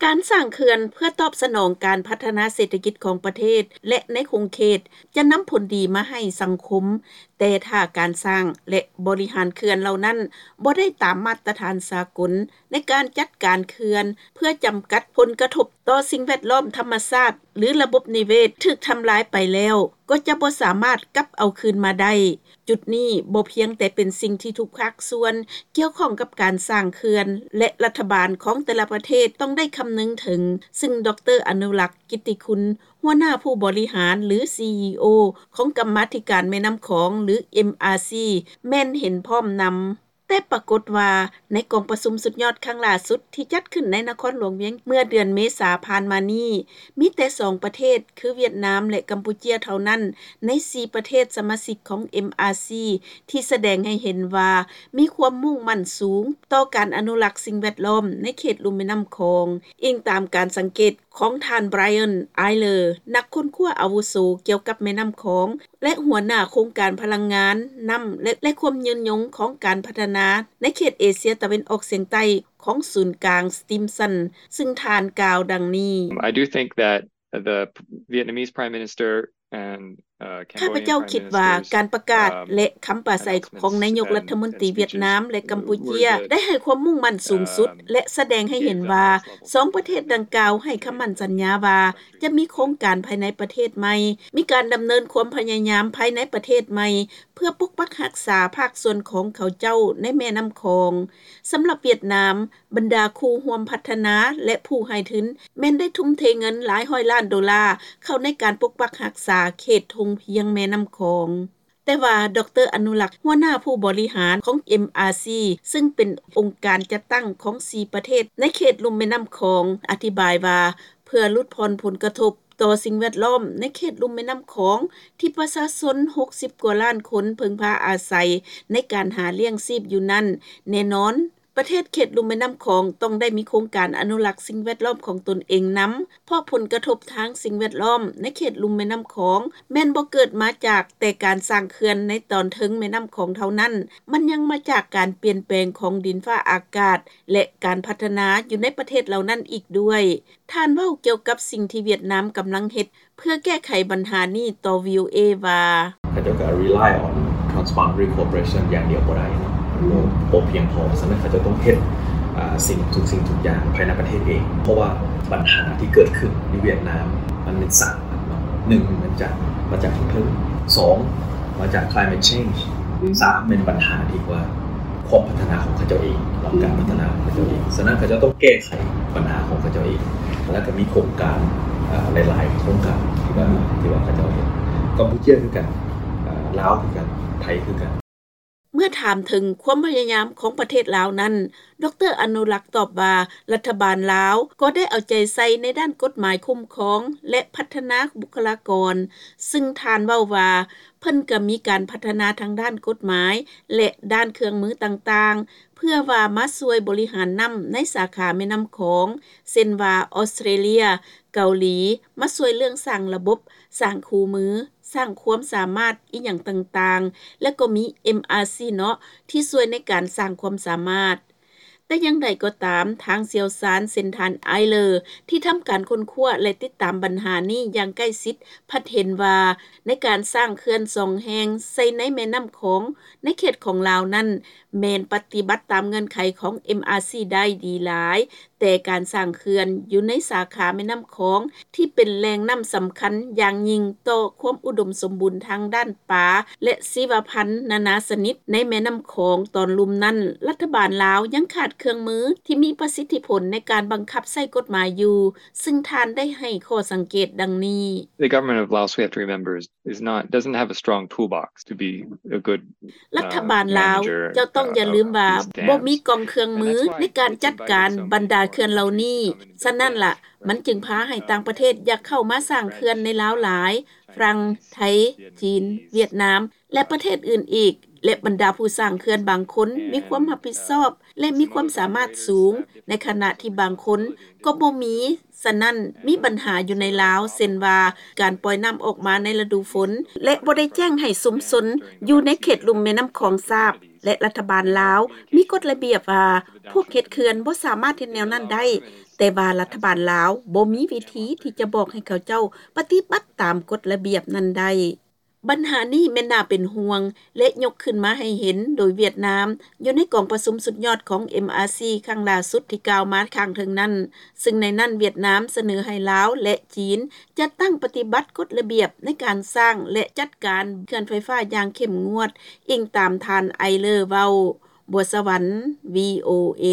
ການສ້າງເຂື່ອນເພື່ອຕອບສະໜອງການພັດທະນາເສດຖະກິດຂອງປະເທດ ແລະ ໃນຂົງເຂດ ຈະນຳຜົນດີມາໃຫ້ສັງຄົມ, ແຕ່ຖ້າການສ້າງ ແລະ ບໍລິຫານເຂື່ອນເຫຼົ່ານັ້ນບໍ່ໄດ້ຕາມມາດຕະຖານສາກົນໃນການຈັດການເຂື່ອນ ເພື່ອຈຳກັດຜົນກະທົບຕໍ່ສິ່ງແວດລ້ອມທຳມະຊາດ ຫຼື ລະບົບນິເວດຖືກທຳລາຍໄປແລ້ວ ກໍຈະບໍ່ສາມາດກັບເອົາຄືນມາໄດ້. ຈຸດນີ້ບໍ່ພຽງແຕ່ເປັນສິ່ງທີ່ທຸກພາກສ່ວນກ່ຽວຂ້ອງກັບການສ້າງເຂື່ອນ ແລະ ລັດຖະບານຂອງແຕ່ລະປະເທດຕ້ອງໄດ້ຄຳນຶງເຖິງ, ຊຶ່ງ ດຣ ອະນຸລັກ ກິດຕິຄຸນ ຫົວໜ້າຜູ້ບໍລິຫານ ຫຼື ຊີອີໂອ ຂອງກຳມາທິການແມ່ນ້ຳຂອງ ຫຼື ເອັມອາຊີ ແມ່ນເຫັນພ້ອມນຳ. ແຕ່ປາກົດວ່າໃນກອງປະຊຸມສຸດຍອດຄັ້ງລ່າສຸດທີ່ຈັດຂຶ້ນໃນນະຄອນຫຼວງວຽງ ເມື່ອເດືອນເມສາຜ່ານມານີ້, ມີແຕ່ສອງປະເທດ ຄືຫວຽດນາມ ແລະ ກຳປູເຈຍ ເທົ່ານັ້ນ ໃນສີ່ປະເທດສະມາຊິກຂອງ ເອັມອາຊີ ທີ່ສະແດງໃຫ້ເຫັນວ່າມີຄວາມມຸ່ງໝັ້ນສູງຕໍ່ການອະນຸລັກສິ່ງແວດລ້ອມໃນເຂດລຸ່ມແມ່ນ້ຳຂອງ, ອີງຕາມການສັງເກດຂອງທ່ານ Brian Eyler ນັກຄົ້ນຄວ້າອາວຸໂສກ່ຽວກັບແມ່ນ້ຳຂອງ ແລະ ຫົວໜ້າໂຄງການພະລັງງານນ້ຳ ແລະ ແລະ ຄວາມຍືນຍົງຂອງການພັດທະນາໃນເຂດເອເຊຍຕາເວັນອອກສຽງໃຕ້ຂອງສູນກາງ Stimson, ຊຶ່ງທ່ານກ່າວດັ່ງນີ້. I do think that the Vietnamese Prime Minister and ຂ້າພະເຈົ້າຄິດວ່າການປະກາດ ແລະ ຄຳປາໄສຂອງນາຍົກລັດຖະມົນຕີຫວຽດນາມ ແລະ ກຳປູເຈຍ ໄດ້ໃຫ້ຄວາມມຸ່ງໝັ້ນສູງສຸດ ແລະ ສະແດງໃຫ້ເຫັນວ່າສອງປະເທດດັ່ງກ່າວໃຫ້ຄຳໝັ້ນສັນຍາວ່າຈະມີໂຄງການພາຍໃນປະເທດໃໝ່, ມີການດຳເນີນຄວາມພະຍາຍາມພາຍໃນປະເທດໃໝ່ ເພື່ອປົກປັກຮັກສາພາກສ່ວນຂອງເຂົາເຈົ້າໃນແມ່ນ້ຳຂອງ. ສຳລັບຫວຽດນາມ, ບັນດາຄູ່ຮ່ວມພັດທະນາ ແລະ ຜູ້ໃຫ້ທຶນ ແມ່ນໄດ້ທຸ່ມເທເງິນຫຼາຍຮ້ອຍລ້ານໂດລາເຂົ້າໃນການປົກປັກຮັກສາເຂດທົ່ງພຽງແມ່ນ້ຳຂອງ. ແຕ່ວ່າ ດຣ ອະນຸລັກ ຫົວໜ້າຜູ້ບໍລິຫານຂອງ ເອັມອາຊີ ຊຶ່ງເປັນອົງການຈັດຕັ້ງຂອງສີ່ປະເທດໃນເຂດລຸ່ມແມ່ນ້ຳຂອງ ອະທິບາຍວ່າ ເພື່ອຫຼຸດຜ່ອນຜົນກະທົບຕໍ່ສິ່ງແວດລ້ອມໃນເຂດລຸ່ມແມ່ນ້ຳຂອງ ທີ່ປະຊາຊົນຫົກສິບກວ່າລ້ານຄົນເພິ່ງພາອາໄສໃນການຫາລ້ຽງຊີບຢູ່ນັ້ນ, ແນ່ນອນ ປະເທດເຂດລຸ່ມແມ່ນ້ຳຂອງຕ້ອງໄດ້ມີໂຄງການອະນຸລັກສິ່ງແວດລ້ອມຂອງຕົນເອງນຳ, ເພາະຜົນກະທົບທາງສິ່ງແວດລ້ອມໃນເຂດລຸ່ມແມ່ນ້ຳຂອງແມ່ນບໍ່ເກີດມາຈາກແຕ່ການສ້າງເຂື່ອນໃນຕອນເທິງແມ່ນ້ຳຂອງເທົ່ານັ້ນ, ມັນຍັງມາຈາກການປ່ຽນແປງຂອງດິນຟ້າອາກາດ ແລະ ການພັດທະນາຢູ່ໃນປະເທດເຫຼົ່ານັ້ນອີກດ້ວຍ. ທ່ານເວົ້າກ່ຽວກັບສິ່ງທີ່ຫວຽດນາມກຳລັງເຮັດ ເພື່ອແກ້ໄຂບັນຫານີ້ຕໍ່ ວີໂອເອ ວ່າ ເຂົາເຈົ້າກໍ rely on transboundary cooperation ຢ່າງດຽວບໍ່ໄດ້ເນາະ ມັນບໍ່ ບໍ່ພຽງພໍ. ສະນັ້ນເຂົາເຈົ້າຕ້ອງເຮັດ ອ່າ ສິ່ງ ທຸກສິ່ງທຸກຢ່າງພາຍໃນປະເທດເອງ ເພາະວ່າບັນຫາທີ່ເກີດຂຶ້ນຢູ່ຫວຽດນາມ ມັນມີສາມອັນເນາະ. ໜຶ່ງ ມັນຈາກ ມາຈາກທາງເທິງ. ສອງ ມາຈາກ climate change. ສາມ ແມ່ນບັນຫາທີ່ວ່າ ຄວາມພັດທະນາຂອງເຂົາເຈົ້າເອງ ແລະ ການພັດທະນາຂອງເຂົາເຈົ້າເອງ. ສະນັ້ນເຂົາເຈົ້າຕ້ອງແກ້ໄຂບັນຫາຂອງເຂົາເຈົ້າເອງ ແລ້ວກໍມີໂຄງການ ເອີ ຫຼາຍໆໂຄງການທີ່ວ່າ ທີ່ວ່າເຂົາເຈົ້າເຮັດ. ກຳປູເຈຍຄືກັນ, ເອີ ລາວຄືກັນ, ໄທຄືກັນ. ເມື່ອຖາມເຖິງຄວາມພະຍາຍາມຂອງປະເທດລາວນັ້ນ, ດຣ ອະນຸລັກຕອບວ່າ ລັດຖະບານລາວກໍໄດ້ເອົາໃຈໃສ່ໃນດ້ານກົດໝາຍຄຸ້ມຄອງ ແລະ ພັດທະນາບຸກຄະລາກອນ, ຊຶ່ງທ່ານເວົ້າວ່າ ເພິ່ນກໍມີການພັດທະນາທາງດ້ານກົດໝາຍ ແລະ ດ້ານເຄື່ອງມືຕ່າງໆ ເພື່ອວ່າມາຊ່ວຍບໍລິຫານນ້ຳໃນສາຂາແມ່ນ້ຳຂອງ ເຊັ່ນວ່າ ອອສເຕຣເລຍ, ເກົາຫຼີ ມາຊ່ວຍເລື່ອງສ້າງລະບົບ, ສ້າງຄູ່ມື, ສ້າງຄວາມສາມາດອີ່ຫຍັງຕ່າງໆ ແລະ ກໍມີ ເອັມອາຊີ ເນາະ ທີ່ຊ່ວຍໃນການສ້າງຄວາມສາມາດ. ແຕ່ຢ່າງໃດກໍຕາມ, ທາງຊ່ຽວຊານເຊັ່ນທ່ານ Eyler ທີ່ທຳການຄົ້ນຄວ້າ ແລະ ຕິດຕາມບັນຫານີ້ຢ່າງໃກ້ຊິດ ພັດເຫັນວ່າ ໃນການສ້າງເຂື່ອນສອງແຫ່ງໃສ່ໃນແມ່ນ້ຳຂອງໃນເຂດຂອງລາວນັ້ນ ແມ່ນປະຕິບັດຕາມເງື່ອນໄຂຂອງ ເອັມອາຊີ ໄດ້ດີຫຼາຍ, ແຕ່ການສ້າງເຂື່ອນຢູ່ໃນສາຂາແມ່ນ້ຳຂອງ ທີ່ເປັນແຫຼ່ງນ້ຳສຳຄັນຢ່າງຍິ່ງຕໍ່ຄວາມອຸດົມສົມບູນທາງດ້ານປາ ແລະ ຊີວະພັນນານາຊະນິດໃນແມ່ນ້ຳຂອງຕອນລຸ່ມນັ້ນ, ລັດຖະບານລາວຍັງຂາດເຄື່ອງມືທີ່ມີປະສິດທິຜົນໃນການບັງຄັບໃຊ້ກົດໝາຍຢູ່, ຊຶ່ງທ່ານໄດ້ໃຫ້ຂໍ້ສັງເກດດັ່ງນີ້. The government of Laos, we have to remember, is, is not, doesn't have a strong toolbox to be a good, ລັດຖະບານລາວ ເຈົ້າຕ້ອງຢ່າລືມວ່າ ບໍ່ມີກອງເຄື່ອງມືໃນການຈັດການບັນດາເຂື່ອນເຫຼົ່ານີ້. ສະນັ້ນລະ ມັນຈຶ່ງພາໃຫ້ຕ່າງປະເທດຢາກເຂົ້າມາສ້າງເຂື່ອນໃນລາວຫຼາຍ, ຝຣັ່ງ, ໄທ, ຈີນ, ຫວຽດນາມ ແລະ ປະເທດອື່ນອີກ, ແລະ ບັນດາຜູ້ສ້າງເຂື່ອນບາງຄົນມີຄວາມຮັບຜິດຊອບ ແລະ ມີຄວາມສາມາດສູງ, ໃນຂະນະທີ່ບາງຄົນກໍບໍ່ມີ. ສະນັ້ນ, ມີບັນຫາຢູ່ໃນລາວ, ເຊັ່ນວ່າ ການປ່ອຍນ້ຳອອກມາໃນລະດູຝົນ ແລະ ບໍ່ໄດ້ແຈ້ງໃຫ້ຊຸມຊົນຢູ່ໃນເຂດລຸ່ມແມ່ນ້ຳຂອງຊາບ. ແລະລັດຖະບານລາວ ມີກົດລະບຽບວ່າ ພວກເຮັດເຂື່ອນ ບໍ່ສາມາດເຮັດແນວນັ້ນໄດ້ ແຕ່ວ່າລັດຖະບານລາວ ບໍ່ມີວິທີທີ່ຈະບອກໃຫ້ເຂົາເຈົ້າ ປະຕິບັດຕາມກົດລະບຽບນັ້ນໄດ້. ບັນຫານີ້ແມ່ນໜ້າເປັນຫ່ວງ ແລະຍົກຂຶ້ນມາໃຫ້ເຫັນໂດຍຫວຽດນາມ ຢູ່ໃນກອງປະຊຸມສຸດຍອດຂອງ MRC ຄັ້ງຫຼ້າສຸດທີ່ກ່າວມາຂ້າງເທິງນັ້ນ ຊຶ່ງໃນນັ້ນຫວຽດນາມສະເໜີໃຫ້ລາວ ແລະຈີນ ຈັດຕັ້ງປະຕິບັດກົດລະບຽບ ໃນການສ້າງ ແລະຈັດການເຂື່ອນໄຟຟ້າຢ່າງເຂັ້ມງວດ ອີງຕາມທ່ານ Eyler ເວົ້າ. ບົວສະຫວັນ VOA.